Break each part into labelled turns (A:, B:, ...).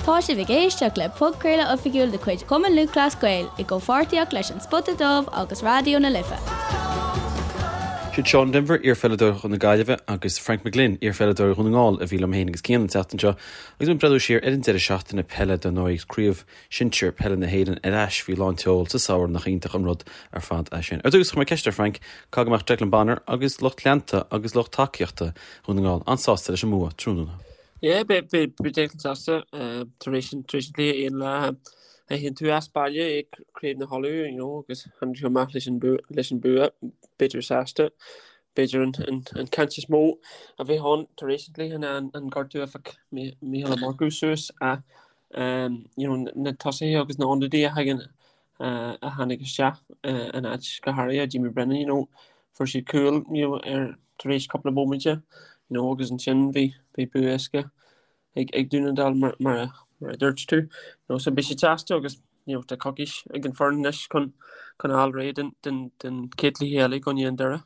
A: Tá sibh ag éisteacht le podchraoladh oifigiúil de chuid Chumann Lúthchleas Gael i gcomhpháirtíocht leis An Spota Dubh agus Raidió na Life.
B: Siad Seán Denvir, iarpheileadóir na Gaillimhe, agus Frank McGlynn, iarpheileadóir Dhún na nGall, a bhí liom féin agus Cian an tseachtain seo agus muid ag breathnú siar ar an deireadh seachtaine peile dar ndóigh agus Craobh Shinsir Peile na hÉireann ar ais faoi lán tseoil sa samhradh nach iontach an rud ar fad é sin. Ar dtús, chuir mé ceist ar Frank, caithfidh go mbeadh Declan Bonner agus lucht leanta agus lucht tacaíochta Dhún na nGall an-sásta leis an mbua tráthnóna.
C: Yeah, beidh Declan sásta tar éis an chluiche aon lá a théann tú as baile i Craobh na hUladh, you know, agus tháinig tú amach leis an leis an bua, b'fhéidir sásta. B'fhéidir an caint is mó a bheith ann tar éis an chluiche ná an gortú a phioc Mícheál Ó Murchú suas ach you know, na tosaithe agus na hionadaithe a thagann a tháinig isteach in áit go háirithe Jamie Brennan, you know, fuair siad cúl you know, ar tar éis cúpla móiminte, you know, agus ansin bhí bhí bua éasca ag ag Dún na nGall mar mar a mar a dúirt tú. You know, so beidh siad sásta agus you know, tá coicís ag an foireann anois chun chun fháil réidh den den den chéad chluiche eile i gcoinne an Doire.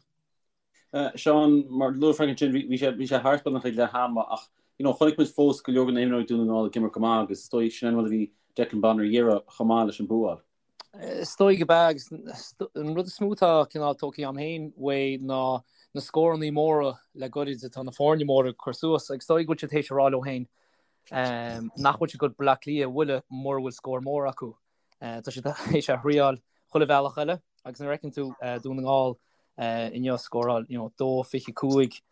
B: Seán, mar luaigh Frank ansin, bhí sé bhí sé thart beagnach ag leath ama ach you know chonaic muid fós go leor de na himreoirí Dún na nGall ag imirt go maith agus is dóigh sin an rud a bhí Declan Bonner a iarraidh chomh maith leis an bua a fháil.
D: Is dóigh gurb ea agus an rud is mó atá cineál tógtha agam féin uaidh ná na scórannaí móra le goirid atá na foirne móra ag cur suas agus is dóigh go bhfuil siad théis a rá leo féin nach bhfuil siad ag dul Bleá Cliath a bhualadh mura bhfuil scór mór acu. Tá siad théis a thriáil chuile bhealach eile agus nuair a fheiceann tú Dún na nGall inniu scóráil you know, 2-25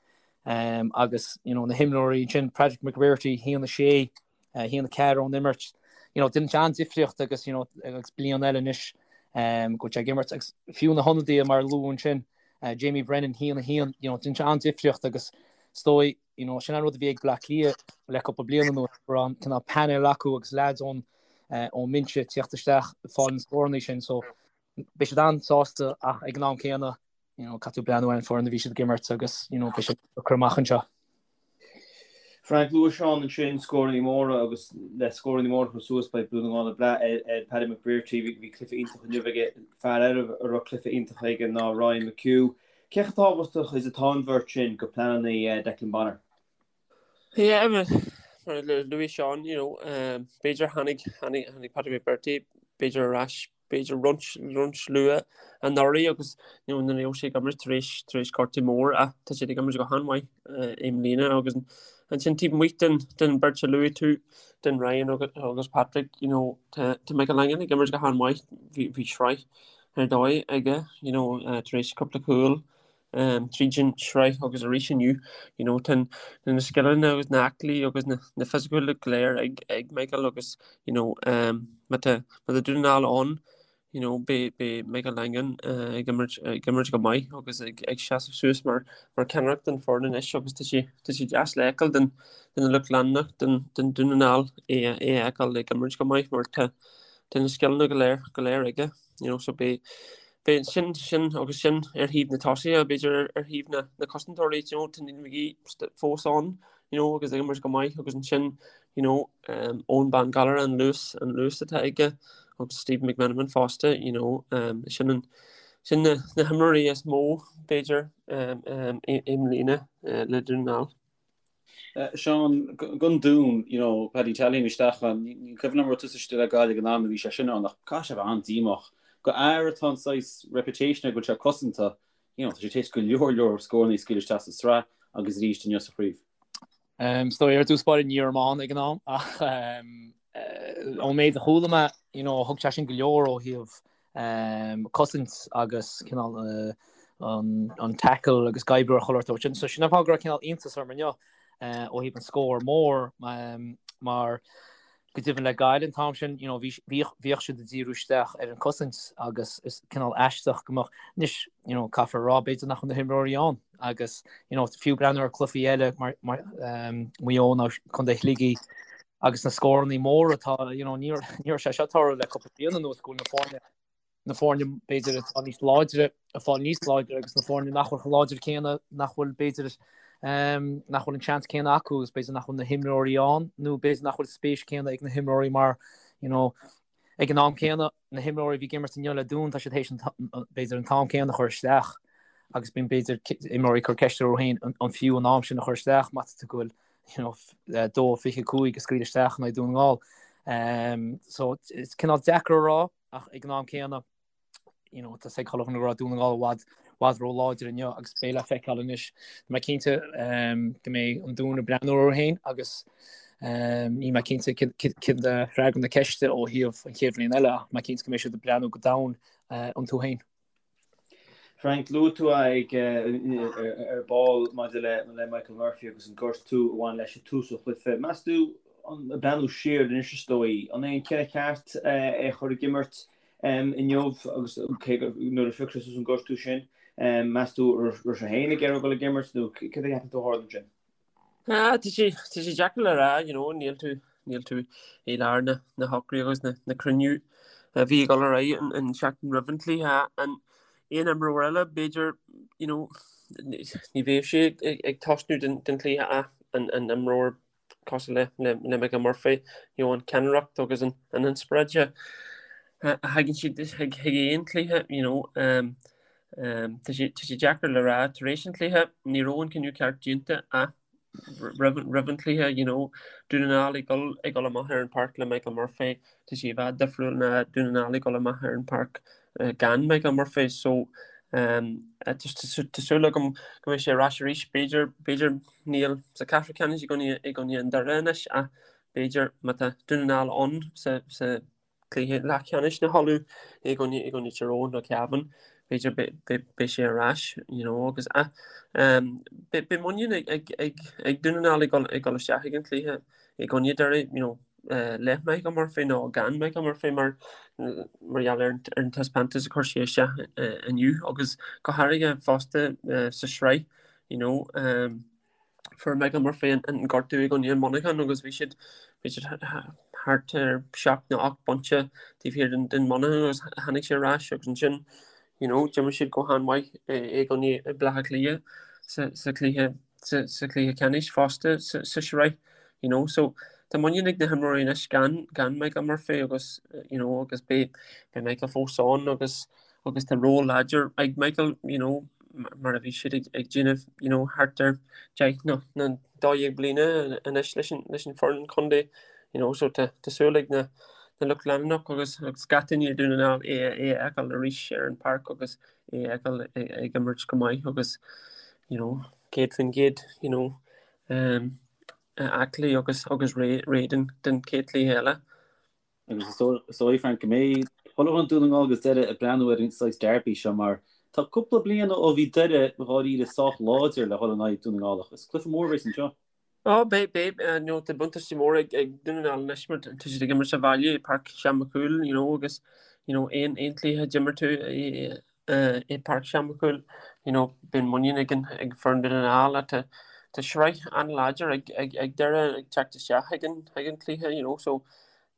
D: agus you know, na himreoirí ansin Patrick McBrearty 1-6, 1-4 ón imirt. You know, déanann sé an-difríocht agus you know, agus bliain eile anois go bhfuil sé ag imirt agus fiú na hionadaithe mar a luadh ansin Jamie Brennan 1-1, you know, déanann sé an-difríocht agus is dóigh you know, sin an rud a bhí ag Bleá Cliath le cúpla bliain anuas, go raibh an cineál panel acu agus leaids ón ón mbinse ag tíocht isteach ag fáil na scórannaí sin, so beidh siad an-sásta ach ag an am céanna, you know, caithfidh tú breathnú ar an foireann a bhí siad ag imirt agus, you know, beidh siad ag cur amach anseo.
E: Frank, luaigh Seán ansin scórannaí móra agus le scórannaí móra a chur suas beidh Dún na nGall ag brath ar ar Paddy McBrearty, bhí cluiche iontach inniu aige, fear eile a raibh cluiche iontach aige ná Ryan McHugh. Cé chomh tábhachtach is atá an bheirt sin go pleananna Declan Bonner?
C: Yeah, mar a luaigh Seán, you know, b'fhéidir tháinig, tháinig, tháinig Patrick McBrearty, b'fhéidir ar ais, b'fhéidir roinnt, roinnt luath anuraidh agus, you know, ní raibh sé ag imirt tar éis, tar éis gortú mór ach tá sé ag imirt go han-mhaith i mbliana agus ansin taobh amuigh den, den bheirt a luaigh tú, den Ryan agus, agus Patrick, you know, tá, tá Michael Langan ag imirt go han-mhaith, bhí, bhí sraith ar dóigh aige, you know, tar éis cúpla cúl tríd an sraith agus arís inniu, you know, tá na scileanna agus na aclaí agus na, na fisiciúla go léir ag, ag Michael agus, you know, má tá, má tá Dún na nGall ann, you know, beidh, beidh Michael Langan ag imirt, ag imirt go maith agus ag, ag seasamh suas mar, mar ceannaireacht den foireann anois agus tá sé, tá sé deas le feiceáil den, den lucht leanúnach den, den Dún na nGall é, é a fheiceáil ag imirt go maith mar tá, tá na scileanna go léir, go léir aige. You know, so beidh, beidh sin, sin agus sin ar thaobh na tosaithe, b'fhéidir ar, ar thaobh na, na cosantóirí, you know, tá Neil McGee fós ann, you know, agus ag imirt go maith agus ansin, you know, um, Eoghan Bán Gallagher an luas, an luas atá aige agus Stephen McMenamin fosta, you know, um, sin an, sin na, na himreoirí is mó, b'fhéidir, um, um, i, i mbliana, uh, le Dún na nGall.
B: Seán, don Dún, you know, Paddy Tally isteach ann, ní cuimhin liom raibh tusa istigh le Gaillimh ag an am a bhí sé sin ann ach caithfidh sé a bheith an-díomách. Do fhear atá an saghas reputation air go bhfuil sé cosanta, you know, tá sé tar éis go leor leor scóranna a scaoileadh isteach sa sraith agus arís inniu sa chraobh.
D: Is dóigh ar dtús báire ní raibh mé ann ag an am ach ón méid a chuala mé, you know, thug sé sin go leor ó thaobh cosaint agus cineál an tackle agus ag oibriú ar chuile shórt. So sin an fáth go raibh cineál iontas orm inniu ó thaobh an scór mór mar go deimhin le Gaillimh an t-am sin, you know, bhíodh siad ag díriú isteach ar an cosaint agus is cineál aisteach go mbeadh, anois, you know, caithfear a rá b'fhéidir nach bhfuil na himreoirí ann agus, you know, fiú breathnú ar cluichí eile mar Maigh Eo nó Contae Shligigh, Agus na scórannaí móra atá, you know, ní raibh sé seo ag tarlú le cúpla bliain anuas go bhfuil na foirne, na foirne b'fhéidir atá níos láidre, ag fáil níos láidre agus na foirne nach bhfuil chomh láidir céanna, nach bhfuil b'fhéidir, nach bhfuil an seans céanna acu agus b'fhéidir nach bhfuil na himreoirí ann nó b'fhéidir nach bhfuil spéis céanna ag na himreoirí mar, you know, ag an am céanna, na himreoirí a bhí ag imirt inniu le Dún, tá siad théis an, b'fhéidir an t-am céanna a chur isteach agus bíonn b'fhéidir imreoirí ag cur ceist orthu féin an fiú an am sin a chur isteach má tá tú go bhfuil. you know, 2-25 a scaoileadh isteach in aghaidh Dún na nGall. So is cineál deacair a rá ach ag an am céanna you know, tá a fhios ag chuile dhuine go raibh Dún na nGall i bhfad bhfad ró-láidir inniu agus beidh le feiceáil anois. Tá mé cinnte go mbeidh an Dún ag breathnú orthu féin agus níl mé cinnte céard é freagra na ceiste ó thaobh an chéad bhliain eile ach tá mé cinnte go mbeidh siad ag breathnú go domhain iontu féin.
E: Frank, luaigh tú ag ar ball maidir le Michael Murphy agus an gortú a bhain leis ag tús an chluiche. Meas tú, ag breathnú siar anois is dóigh, an é an cinneadh ceart é a chur ag imirt inniu agus cé go nuair a phioc sé suas an gortú sin, meas tú raibh sé féin ag iarraidh dul ag imirt nó céard a cheapann tú a tharla ansin?
C: Ah, tá sé, tá sé deacair le rá, you know, níl tú, níl tú i lár na, na shocruithe agus na, na cruinniú a bhí ag dul ar aghaidh an, an seachtain roimh an cluiche. An aon imreoir eile, b'fhéidir, you know, ní bheadh sé ag, ag, ag tosnú den, den chluiche ach an, an imreoir cosúil le, le, le Michael Murphy, you know, an ceannaireacht agus an, an inspioráid a, a thagann siad chuig, chuig aon chluiche, you know, um, Tá sé deacair le rá tar éis an chluiche, ní raibh an cinneadh ceart déanta ach roimh an chluiche, you know, Dún na nGall ag dul ag dul amach ar an páirc le Michael Murphy, tá sé i bhfad difriúil ná Dún na nGall ag dul amach ar an páirc gan Michael Murphy. So tá súil agam go mbeidh sé ar ais arís, b'fhéidir, b'fhéidir níl sa ceathrú ceannais i gcoinne i gcoinne an Doire anois ach b'fhéidir má tá Dún na nGall ann sa sa cluiche leathcheannais na hUladh i gcoinne i gcoinne Tír Eoghain nó Cavan, b'fhéidir beidh sé ar ais, you know, agus ah, um, beidh muinín ag, ag, ag, ag Dún na nGall ag dul, ag dul isteach ag an chluiche i gcoinne Derry, you know, uh, le Michael Murphy nó gan Michael Murphy mar mar gheall ar, ar an taispeántas a chuir sé isteach uh, inniu agus go háirithe fosta uh, sa sraith, you know, um, Fuair Michael Murphy an gortú i gcoinne Monaghan agus bhí siad bhí siad thart ar 7 nó 8 bpointe taobh thiar den den Monaghan agus tháinig sé ar ais agus ansin you know d'imir siad go han-mhaith i gcoinne Baile Átha Cliath sa sa chluiche sa sa chluiche ceannais fosta sa sa sraith you know so tá muinín ag na himreoirí anois gan gan Michael Murphy agus you know agus beidh beidh Michael fós ann agus agus tá ról láidir ag Michael you know mar a bhí siad ag ag déanamh you know thart ar 10 nó nó 12 bliana anois leis an leis an foireann contae you know so tá tá súil ag na na lucht leanúnach agus agus gach duine i Dún na nGall é é a fheiceáil arís ar an páirc agus é a fheiceáil ag ag imirt go maith agus you know 100% you know um, aclaí agus agus réidh réidh don don chéad chluiche eile.
B: Agus is dóigh, Frank, go mbeidh chuile dhuine Dún na nGall agus Doire ag breathnú ar an saghas derby seo mar tá cúpla bliain ó bhí Doire dháiríre sách láidir le dhul in aghaidh Dún na nGall ach is cluiche mór a bheas anseo.
C: Ó, beidh, beidh, you know, tá buntáiste mór ag, ag Dún na nGall anois mar tá siad ag imirt sa bhaile i Páirc Seán Mac Cumhaill, you know, agus, you know, aon, aon chluiche a d'imir tú i, i Páirc Seán Mac Cumhaill, you know, bíonn muinín ag an, ag foireann Dún na nGall ach tá, tá sraith an-láidir ag, ag, ag Doire ag teacht isteach ag an, ag an cluiche, you know, so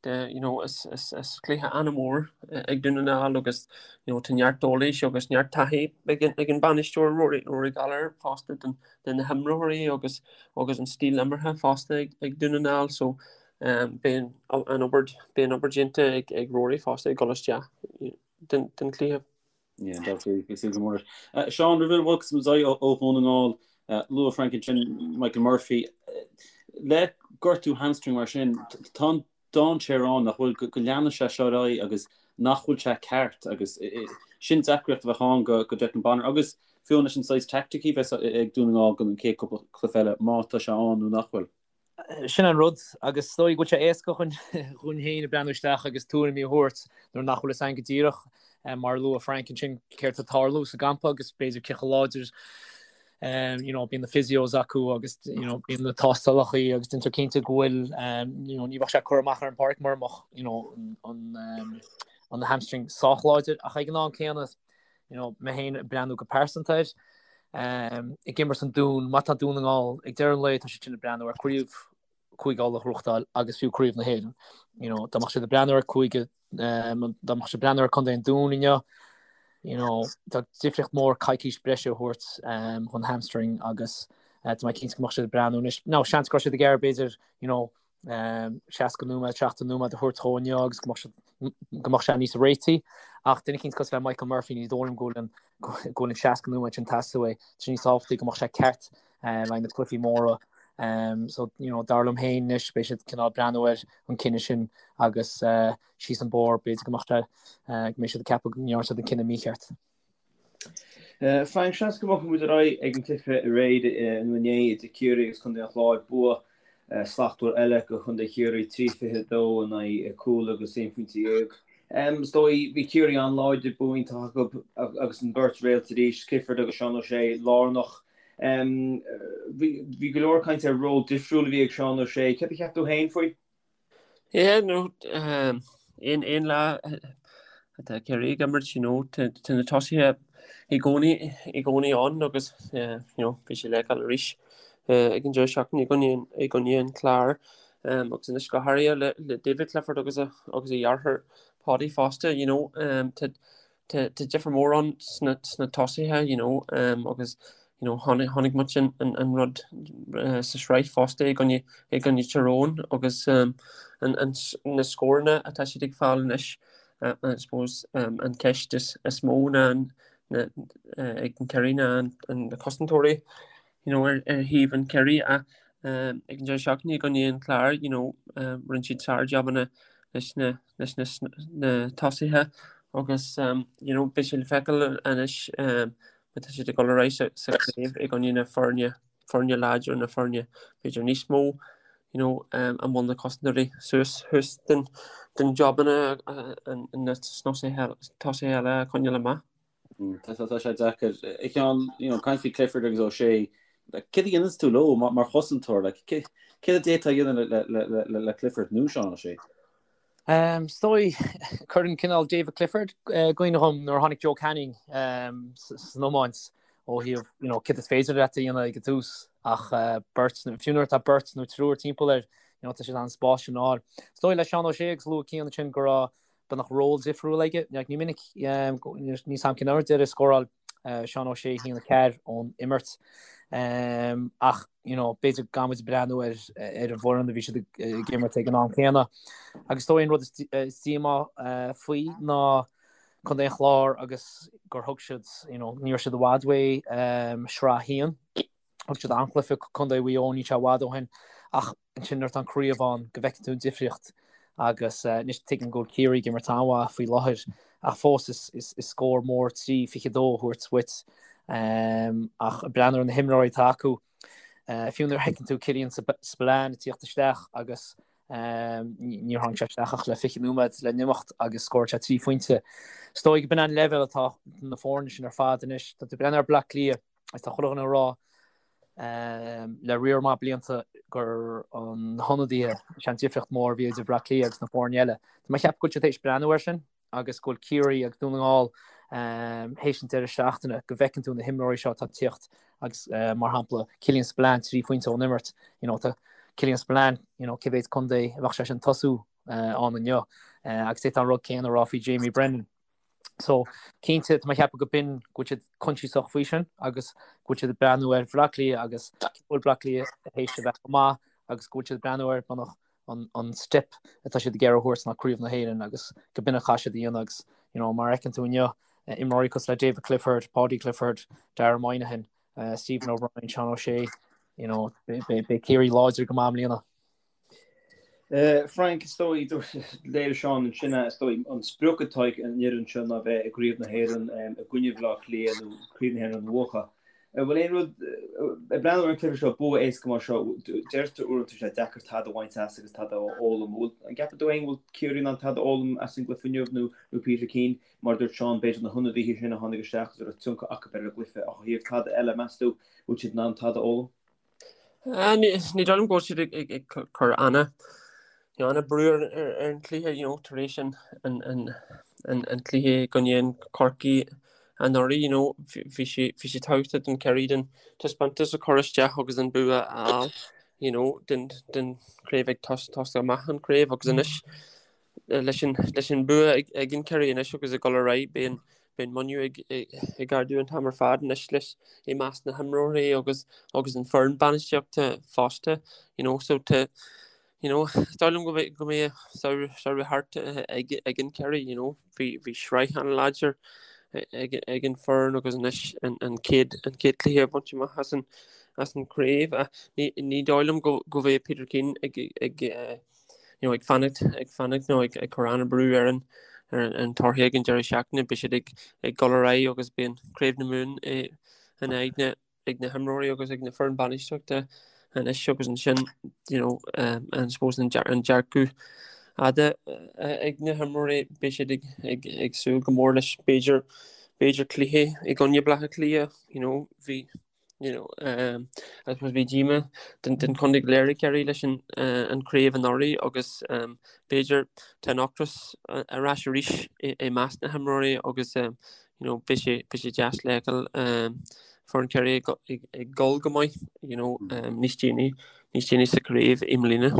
C: the, you know, is, is, is cluiche an-mhór ag Dún na nGall agus, you know, tá neart eolais agus neart taithí ag an, ag an bainisteoir Rory, Rory Gallagher fosta den, de na himreoirí agus, agus an stíl imeartha fosta ag, ag Dún na nGall, so um, beidh an, an obair, beidh an obair déanta ag, ag Rory fosta ag dul isteach den, den chluiche.
B: Yeah, that's really bhí súil go mór leis. Seán, roimh a bhogfas muid ó Dhún na nGall, luaigh Frank ansin Michael Murphy. Le gortú hamstring mar sin, tá an dainséar ann nach bhfuil, go leanfaidh sé seo ar aghaidh agus nach bhfuil sé ceart agus sin deacracht a bheadh ann go Declan Bonner agus fiú leis an saghas teaicticí a bheas ag Dún na nGall don chéad cúpla cluiche eile má tá sé ann nó nach bhfuil.
D: Sin an rud, agus is dóigh go bhfuil sé éasca dhúinn féin ag breathnú isteach agus tuairimí a thabhairt nuair nach bhfuil fhios againn go díreach, mar a luaigh Frank ansin, céard tá ag tarlú sa gcampa agus b'fhéidir cé chomh láidir you know, bíonn na physios acu agus you know, bíonn na tástálacha agus déantar cinnte go bhfuil you know, ní bheadh sé curtha amach ar an bpáirc mura mbeadh you know, an, an, an hamstring sách láidir ach ag an am céanna you know, mé féin ag breathnú go pearsanta air, ag imirt an Dún, má tá Dún na nGall, ag deireadh an lae tá siad sin ag breathnú ar craobh Cúige Uladh a ghnóthachtáil agus fiú craobh na hÉireann. You know, dá mbeadh siad ag breathnú ar cúige, dá mbeadh siad ag breathnú ar Contae an Dúin inniu, you know, tá difríocht mór coicís breise a thabhairt chun hamstring agus tá mé cinnte go mbeadh siad ag breathnú anois. Now, seans go raibh siad ag iarraidh b'fhéidir, you know, 60 nóiméad, 70 nóiméad a thabhairt dhó inniu agus go mbeadh siad, go mbeadh sé níos réití. Ach duine eicínt cosúil le Michael Murphy, ní dóigh liom go bhfuil an, go bhfuil an 60 nóiméad sin ag teastáil uaidh. Tá sé níos tábhachtaí go mbeadh sé ceart le haghaidh na cluichí móra. So, you know, dar liom féin anois beidh siad cineál breathnú ar an cinneadh sin agus síos an bóthar b'fhéidir go mbeadh sé, go mbeidh siad ag ceapadh go ndearna siad an cinneadh mícheart.
E: Frank, seans go mbogfaidh muid ar aghaidh ag an gcluiche aréir nó inné idir Ciarraí agus Contae an Chláir. Bua slachtmhar eile do Chontae Chiarraí, 3-22 in aghaidh cúl agus aon phointe dhéag. Is dóigh, bhí Ciarraí an-láidir, bua iontach acu agus an bheirt réalt arís, Clifford agus Seán O'Shea, lárnach. Bhí go leor cainte ar ról difriúil a bhí ag Seán O'Shea. Céard a cheap tú féin faoi?
C: Yeah, no, aon aon lá atá Ciarraí ag imirt, you know, tá na tosaithe i gcónaí i gcónaí ann agus you know, bhí sé le feiceáil arís ag an deireadh seachtaine i gcoinne i gcoinne an Chláir agus anois go háirithe le le David Clifford agus a agus a dheartháir Paudie fosta, you know, tá Tá difear mór ann sna tosaithe you know agus you know chonaic muid an rud sa sraith fosta i gcoinne i gcoinne Tyrone agus na scóranna atá siad ag fáil anois I suppose an ceist is mó ná ag an Ciarraí ná na cosantóirí you know ar thaobh an Chiarraí ach ag an deireadh seachtaine i gcoinne an Chláir you know rinne siad sár-jabanna leis na leis na tosaithe agus you know beidh sé le feiceáil anois má tá siad ag dul ar aghaidh sa chraobh i gcoinne na foirne foirne láidir na foirne b'fhéidir níos mó you know an bhfuil na cosantóirí suas thuas den den jabanna na tosaithe eile a choinneáil amach.
B: Tá sé deacair. A Sheáin, you know, caint faoi Clifford agus O'Shea, céard a dhéananns tú leo mar chosantóir? Like, céard a d'fhéadfá a dhéanamh le Clifford nó Seán O'Shea?
D: Is dóigh, cuireann cineál David Clifford i gcuimhne dhom nuair a tháinig Joe Canning san iomáint ó thaobh, you know, céard is féidir leat a dhéanamh ag an tús ach beirt, fiú nuair atá beirt nó triúr timpeall air, you know, tá sé in ann an spás sin a fháil. Is dóigh le Seán O'Shea agus luaigh Cian ansin go raibh beagnach ról difriúil aige. Ní minic, níl a fhios agam cén uair deiridh a scóráil Seán O'Shea 1-4 ón imirt. Ach, you know, b'fhéidir gan muid breathnú ar ar an bhfoireann a bhí siad ag imirt ag an am céanna. Agus is dóigh an rud is díomá faoi ná Contae an Chláir agus gur thug siad, you know, ní raibh siad i bhfad uaidh Sraith 1. Thug siad an-chluiche Contae Mhaigh Eo níl sé i bhfad ó shin ach ansin nuair atá an craobh ann go bhfeiceann tú an difríocht agus anois tuigim go bhfuil Ciarraí ag imirt an-mhaith faoi láthair ach fós is scór mór 3-22 a thabhairt duit ach ag breathnú ar na himreoirí atá acu fiú nuair a fheiceann tú Killian Spillane ag tíocht isteach agus níor tháinig sé isteach ach le 20 nóiméad le n-imeacht agus scóráil sé 3 phointe. Is dóigh go b'in an leibhéal atá na foirne sin ar fad anois. Tá tú ag breathnú ar Bleá Cliath Agus tá chuile dhuine ag rá le riar maith blianta gur na hionadaithe, is é an difríocht mór a bhí idir Bhleá Cliath agus na foirne eile. Tá mé ag ceapadh go bhfuil siad théis breathnú air sin agus go bhfuil Ciarraí agus Dún na nGall théis an deireadh seachtaine go bhfeiceann tú na himreoirí seo atá ag tíocht agus mar shampla Killian Spillane 3 phointe ón imirt, you know, tá Killian Spillane, you know, cé mhéad contae a bheadh sé sin tosú ann inniu agus d'fhéadfá an rud céanna a rá faoi Jamie Brennan. So, cinnte, tá mé ag ceapadh go b'in go bhfuil siad coinsiasach faoi sin agus go bhfuil siad ag breathnú ar Bhleá Cliath agus go bhfuil Bleá Cliath théis a bheith go maith agus go bhfuil siad ag breathnú ar beagnach an, an step atá siad ag iarraidh a thabhairt ná Craobh na hÉireann agus go b'in a chaithfidh siad a dhéanamh agus you know, mar a fheiceann tú inniu, imreoirí cosúil le David Clifford, Paudie Clifford, Dara Moynihan, uh, Stephen O'Brien, Sean O'Shea, you know, beidh Ciarraí láidir go maith i mbliana.
E: Frank, is dóigh, léirigh Seán ansin é, is dóigh, an sprioc atá ag an fhoireann seo ná bheith i gCraobh na hÉireann i gcoinne Bhaile Átha Cliath nó Craobh na hÉireann a bhuachan. An bhfuil aon rud, ag breathnú ar an cluiche seo, bua éasca mar seo, deirtear uaireanta tá sé deacair tada a bhaint as agus tada a fhoghlaim. An gceapann tú féin go bhfuil Ciarraí in ann tada a fhoghlaim as an gcluiche inniu nó Peter Keane, mar a dúirt Seán, b'fhéidir na hionadaithe sin a tháinig isteach agus a raibh tionchar acu ar an gcluiche ach ó thaobh tada eile, meas tú, bhfuil siad in ann tada a fhoghlaim?
C: Ní dóigh liom go bhfuil siad ag cur an-brú ar an chluiche you know tar éis an cluiche i gcoinne an Chorcaí anuraidh you know bhí sé bhí sé tábhachtach don Ciarraí den taispeántas a chur isteach agus an bua a fháil you know den den chraobh ag tosach amach an chraobh agus anois leis an leis an bua ag an Ciarraí anois agus ag dul ar aghaidh beidh an beidh an muinín ag ag ardú an t-am ar fad anois leis i measc na himreoirí agus agus an foireann bainistíochta fosta you know so tá you know is dóigh liom go mbeidh go mbeidh samhradh thart ag ag an Ciarraí you know bhí bhí sraith an-láidir ag ag an foireann agus anois an an chéad an chéad cluiche a bhaint amach as an. as an chraobh ach ní ní dóigh liom go go bheidh Peter Keane ag ag you know ag fanacht ag fanacht nó ag ag cur an-brú ar an ar an torthaí ag an deireadh seachtaine beidh siad ag ag dul ar aghaidh agus beidh an Craobh na Mumhan in aghaidh na ag na himreoirí agus ag na foireann bainistíochta anois agus ansin you know um, I suppose an an dearcadh fhada ag na himreoirí beidh siad ag ag ag súil go mór leis b'fhéidir b'fhéidir cluiche i gcoinne Baile Átha Cliath you know bhí you know um, I suppose bhí díoma den den chontae go léir ag Ciarraí leis an uh, an craobh anuraidh agus um, b'fhéidir tá an ocras ar ais arís i, i measc na himreoirí agus um, you know, beidh sé, beidh sé deas le feiceáil um, foireann Chiarraí ag, ag, ag dul go maith, you know, um, níos déanaí, níos déanaí sa chraobh i mbliana.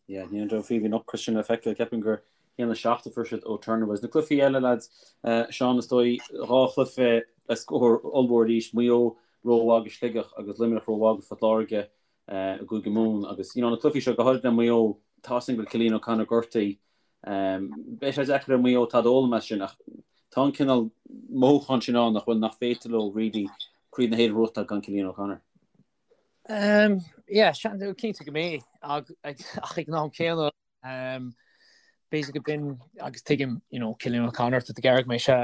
B: Yeah, ní an faoi bhí an ocras sin le feiceáil, ceapaim gur 1-7 a fuair siad ó Turner Boys. Na cluichí eile, lads, uh, Seán is dóigh, dhá chluiche le scór ollmhór arís, Maigh Eo rómhaith do Shligeach agus Luimneach rómhaith do Phort Láirge uh, i gCúige Mumhan agus you know, na cluichí seo go háirid le Maigh Eo, tá sin go bhfuil Cillian O'Connor gortaithe, Beidh sé deacair ar Mhaigh Eo tada a fhoghlaim as sin ach tá an cineál mothúchán sin ann nach bhfuil nach féidir leo really Craobh na hÉireann a bhuachtáil gan Cillian O'Connor.
D: Yeah, cinnte go mbeidh ach ag an am céanna b'fhéidir go b'in agus tuigim you know Cillian O'Connor tá tú ag iarraidh go mbeidh sé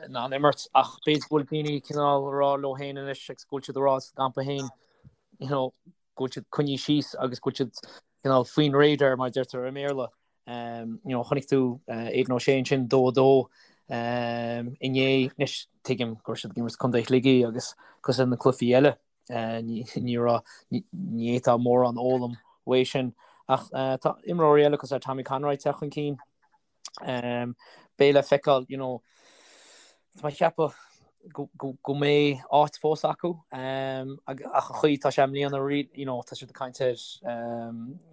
D: in ann imirt ach b'fhéidir go bhfuil daoine cineál ag rá leo féin anois agus go bhfuil siad ag rá sa gcampa féin you know go bhfuil siad coinnithe síos agus go bhfuil siad cineál faoin radar mar a deirtear i mBéarla. You know, chonaic tú Aidan O'Shea ansin 2-2 inné. Anois tuigim go raibh siad ag imirt Contae Shligigh agus cosúil le na cluichí eile ní raibh, ní fhéadfá mórán a fhoghlaim uaidh sin. Ach tá imreoirí eile cosúil le Tommy Conroy ag teacht chun cinn. Beidh le feiceáil, you know, tá mé ag ceapadh go mbeidh áit fós acu ach an chaoi tá sé i mbliana, you know, tá siad ag caint ar,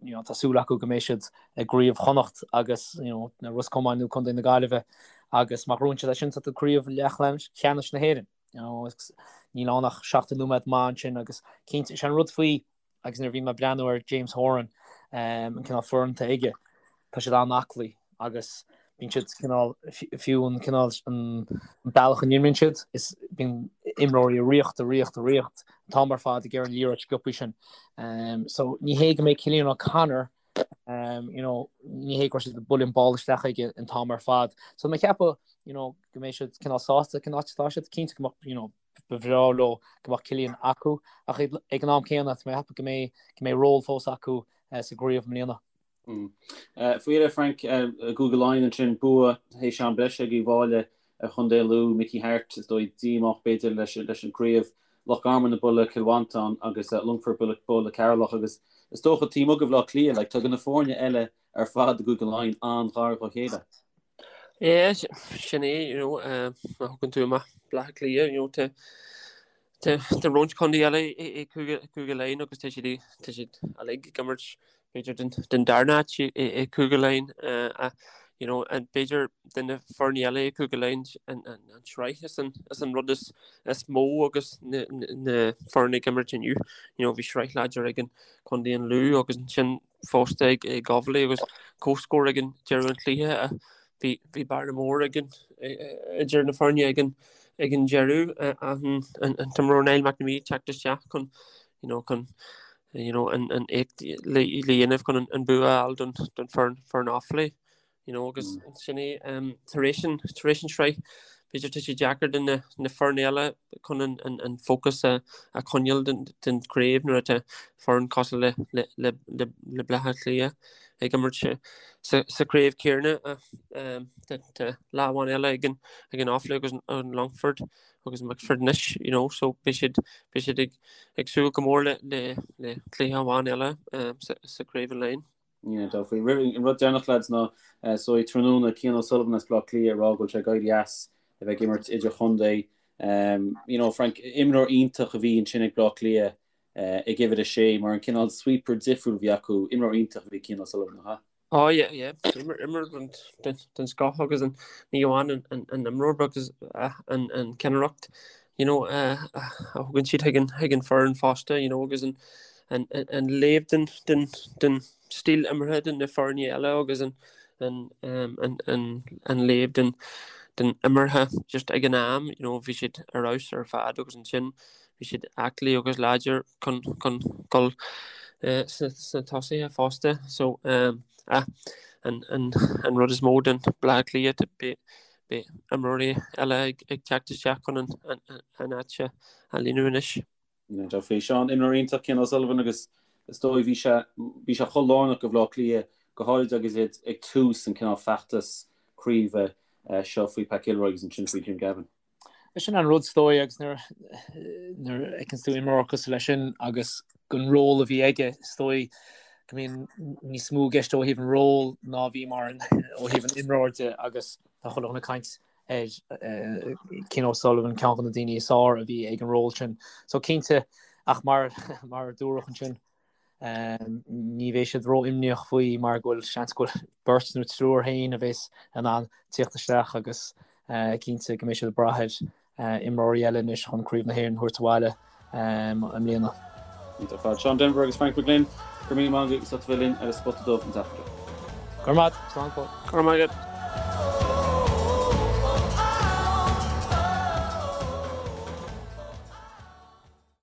D: you know, tá súil acu go mbeidh siad i gCraobh Chonnacht agus, you know, na Ros Comáin nó Contae na Gaillimhe agus má ghnóthaíonn siad é sin tá tú craobh leathcheannais na hÉireann. You know, níl ann ach 70 nóiméad maith ansin agus cinnte, sé an rud faoi Agus nuair a bhí mé ag breathnú ar James Horan, an cineál foireann atá aige, tá siad an-aclaí agus bíonn siad cineál, fiú an cineál, an bealach a n-imríonn siad, is bíonn imreoirí ag ritheacht, ag ritheacht, ag ritheacht an t-am ar fad ag iarraidh an liathróid sciobtha sin. So ní hé go mbeidh Cillian O'Connor, you know, ní hé go raibh siad ag bualadh an ball isteach aige an t-am ar fad. So mé ag ceapadh, you know, go mbeidh siad cineál sásta cén áit atá siad, cinnte go mbeadh, you know, Ba bhreá leo go mbeadh Cillian acu ach ag an am céanna tá mé ag ceapadh go mbeidh go mbeidh ról fós acu sa gcraobh i mbliana.
B: Faoi dheireadh, Frank, i gCúige Laighean ansin, bua théis am breise ag Uíbh Fhailí ar Chontae Lú, Mickey Harte, is dóigh, díomách b'fhéidir leis an gcraobh, Loch Garman ag bualadh Cill Mhantáin agus Longfort ag bualadh Ceatharlach agus is dócha taobh amuigh de Bhaile Átha Cliath, like, tá na foirne eile ar fad i gCúige Laighean an-ghar dá chéile.
C: Yeah, sin é, you know, má thugann tú amach Baile Átha Cliath, you know, tá tá tá roinnt contae eile i Cúige Cúige Laighean agus tá siad tá siad uilig ag imirt b'fhéidir den den darna háit i i Cúige Laighean ach you know, and b'fhéidir de na foirne eile i Cúige Laighean an an an tsraith is an is an rud is is mó agus na na foirne ag imirt inniu, you know, bhí sraith láidir ag an Contae an Lú agus ansin fosta ag Offaly agus comhscór ag an deireadh an chluiche. Bhí bhí bearna mór ag an idir na foirne ag an ag an deireadh an an t-imreoir Niall McNamee ag teacht isteach chun you know chun you know an an éacht le le dhéanamh chun an bua a fháil don don foireann foireann Offaly. You know, agus sin é tar éis an tar éis an sraith b'fhéidir tá sé deacair do na na foirne eile chun an an an fócas a a choinneáil den den chraobh nuair atá foireann cosúil le le le le le Baile Átha Cliath ag imirt sa sa sa chraobh céanna tá tá lá amháin eile ag an ag an Offaly agus an Longford agus Wexford anois you know so beidh siad beidh siad ag ag súil go mór le le le cluiche amháin eile sa sa chraobh an Laighean.
B: Yeah, definitely. An rud deireanach lads ná so tráthnóna Cian O'Sullivan as Baile Átha Cliath ag rá go bhfuil sé ag éirí as a bheith ag imirt idir-chontae. Um, you know, Frank, imreoir iontach a bhí ansin ag Baile Átha Cliath uh, ag uimhir a sé mar an cineál sweeper difriúil a bhí acu, imreoir iontach a bhí Cian O'Sullivan, nach ea?
C: Oh yeah, yeah. Imreoir den, den, den scoth agus an, ní amháin an, an, an imreoir agus uh, an, an ceannaireacht you know, uh, a thugann siad chuig an, chuig an foireann fosta, you know, agus an, an, an léamh den, den, den stíl imeartha den na foirne eile agus an, an, um, an, an, an léamh den, den imeartha just ag an am, you know, bhí siad ar fheabhas ar fad agus ansin. Bhí siad aclaí agus láidir chun chun dul sna tosaithe fosta. So ah an an an rud is mó don Bleá Cliath beidh beidh imreoirí eile ag ag teacht isteach chun an an an áit a líonadh anois.
B: Níl aon dabht faoi. Seán, imreoir iontach Cian O'Sullivan agus is dóigh bhí sé bhí sé chomh lárnach do Bhleá Cliath go háirid agus iad ag tús an cineál feachtas craoibhe seo faoi Pat Gilroy agus ansin faoi Jim Gavin.
D: Sin an rud is dóigh agus nuair a fheiceanns tú imreoir cosúil leis sin agus an ról a bhí aige is dóigh go mbíonn níos mó i gceist ó thaobh an ról ná bhí mar ó thaobh an imreoir de agus tá chuile dhuine ag caint ar Cian O'Sullivan ceann de na daoine is fearr a bhí ag an ról sin. So cinnte ach mar mar a dúradh ansin Ní bheidh siad ró-imníoch faoi mar go bhfuil seans go bhfuil beirt nó triúr féin a bheas in ann tíocht isteach agus cinnte go mbeidh siad ag brath ar imreoirí eile anois chun Craobh na hÉireann a thabhairt abhaile i mbliana.
B: Iontach ar fad. Seán Denvir agus Frank McGlynn, go raibh míle maith agaibh as ucht a bheith linn ar an Spota Dubh an tseachtain seo.
D: Go raibh maith agat. Slán go fóill.
C: Go raibh maith agat.